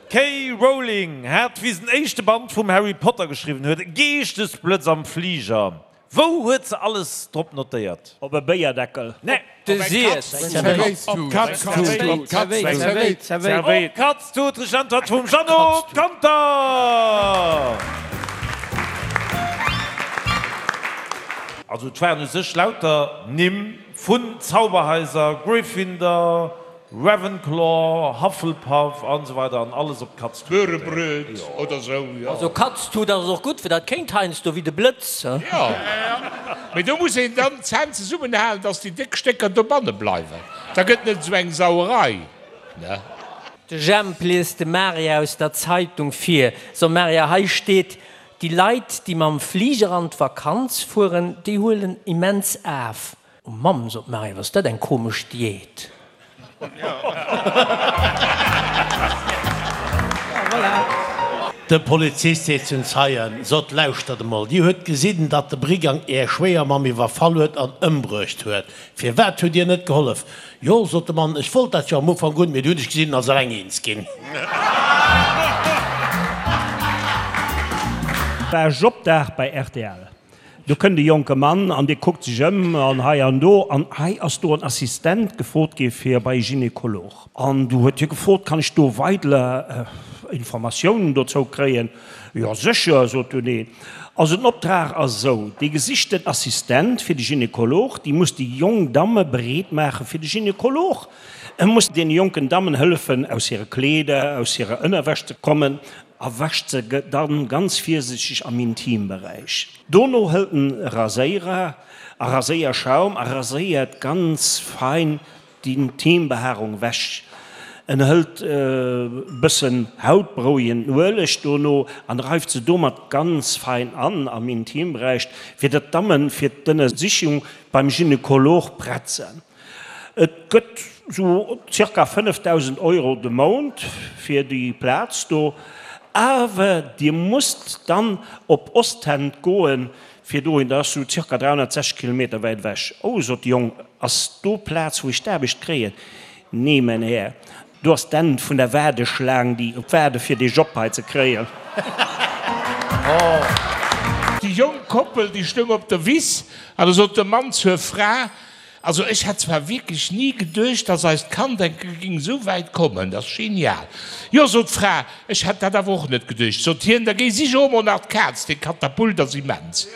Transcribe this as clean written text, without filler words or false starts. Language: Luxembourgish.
D'K. Rowling hat, wéi se den éischte Band vum Harry Potter geschriwwen huet, e Geeschtesblëtz am Fliger. Wou huet se alles drop notéiert? Op e Béierdeckel. Nee. De Siess. Op d'Katz-Tut. Richteg Äntwert vum Jeannot Ganter. Also et waren u sech lauter Nimm vun Zauberhaiser, Gryffindor, Ravenclaw, Hufflepuff an esou weider an alles op d'Katz-Tut notéiert. Börebröt oder sou, jo. Also Katz-Tut ass och gutt, fir dat kéint heiansdo wéi de Blëtz, he? Jo, mee do muss een dann d'Zänn zesummenhalen, dass déi déck Stécker dobanne bleiwen, da gëtt net esou eng Sauerei, ne? De Jemp liest dem Maria aus der Zeitung vir. So Maria, hei steet, déi Leit, déi mam Fliger an d'Vakanz fueren, déi huelen immens af. Oh Mamm, sot d'Maria, wat ass dat eng komesch Diät. De Polizist seet zum Zeien, Sot, lauschtert emol, Dir huet gesinn, datt de Brigang Är Schwéiermamm iwwerfall huet an ëmbruecht huet. Firwat hutt Dir net gehollef? Jo, sot de Mann, ech wollt dat jo am Ufank un, mee du hunn ech gesinn, en ass eleng eens ginn. War Jobdag bei rtl. Do kënnt e jonke Mann an dee kuckt sech ëm an hei an do an hei ass do en Assistent gefrot gi fir bei e Gynekolog. An du huet hie gefrot, Kann ech do weidler Informatiounen dozou kréien? Jo sécher, sot dunn een. Also den Optrag ass esou, dee gesichten Assistent fir de Gynekolog, déi muss déi jonk Damme bereet maache fir de Gynekolog. E muss deene jonken Dammen hëllefen aus hire Kleeder, aus hirer Ënnerwäsch ze kommen a wäscht se dann ganz virsichteg am Intimberäich. Dono hëlt en e Raséierer a Raséierschaum a raséiert ganz fein d'Intimbehaarung wech. En hëlt e bëssen hautberouegenden Ueleg dono an reift se domat ganz fein an am Intimberäich, fir datt d'Dammen fir d'Ënnersichung beim Gynekolog prett sen. Et gëtt sou zirka 5.000 Euro de Mount fir déi Plaz do, awer Dir musst dann op Ostend goen, fir dohin, dat ass sou zirka 360 Kilometer wäit ewech. Oh, sot de Jong, ass do Plaz, wou ech d'Aarbecht kréien? Nee, mäin Här, Do ass d'Enn vun der Waardeschlaang, déi waarde fir dee Job hei ze kréien. Déi jonk Koppel, déi stoung op der Wiss an da sot de Mann zur Fra, Also ech hätt zwar wierklech ni geduecht, dass eist Kand eng Kéier géing esou wäit kommen, dat ass genial. Jo, sot d'Fra, ech hätt dat awer och net geduecht. Sot hien, da géi sich och emol nach d'Kaz, dee Katapult ass immens.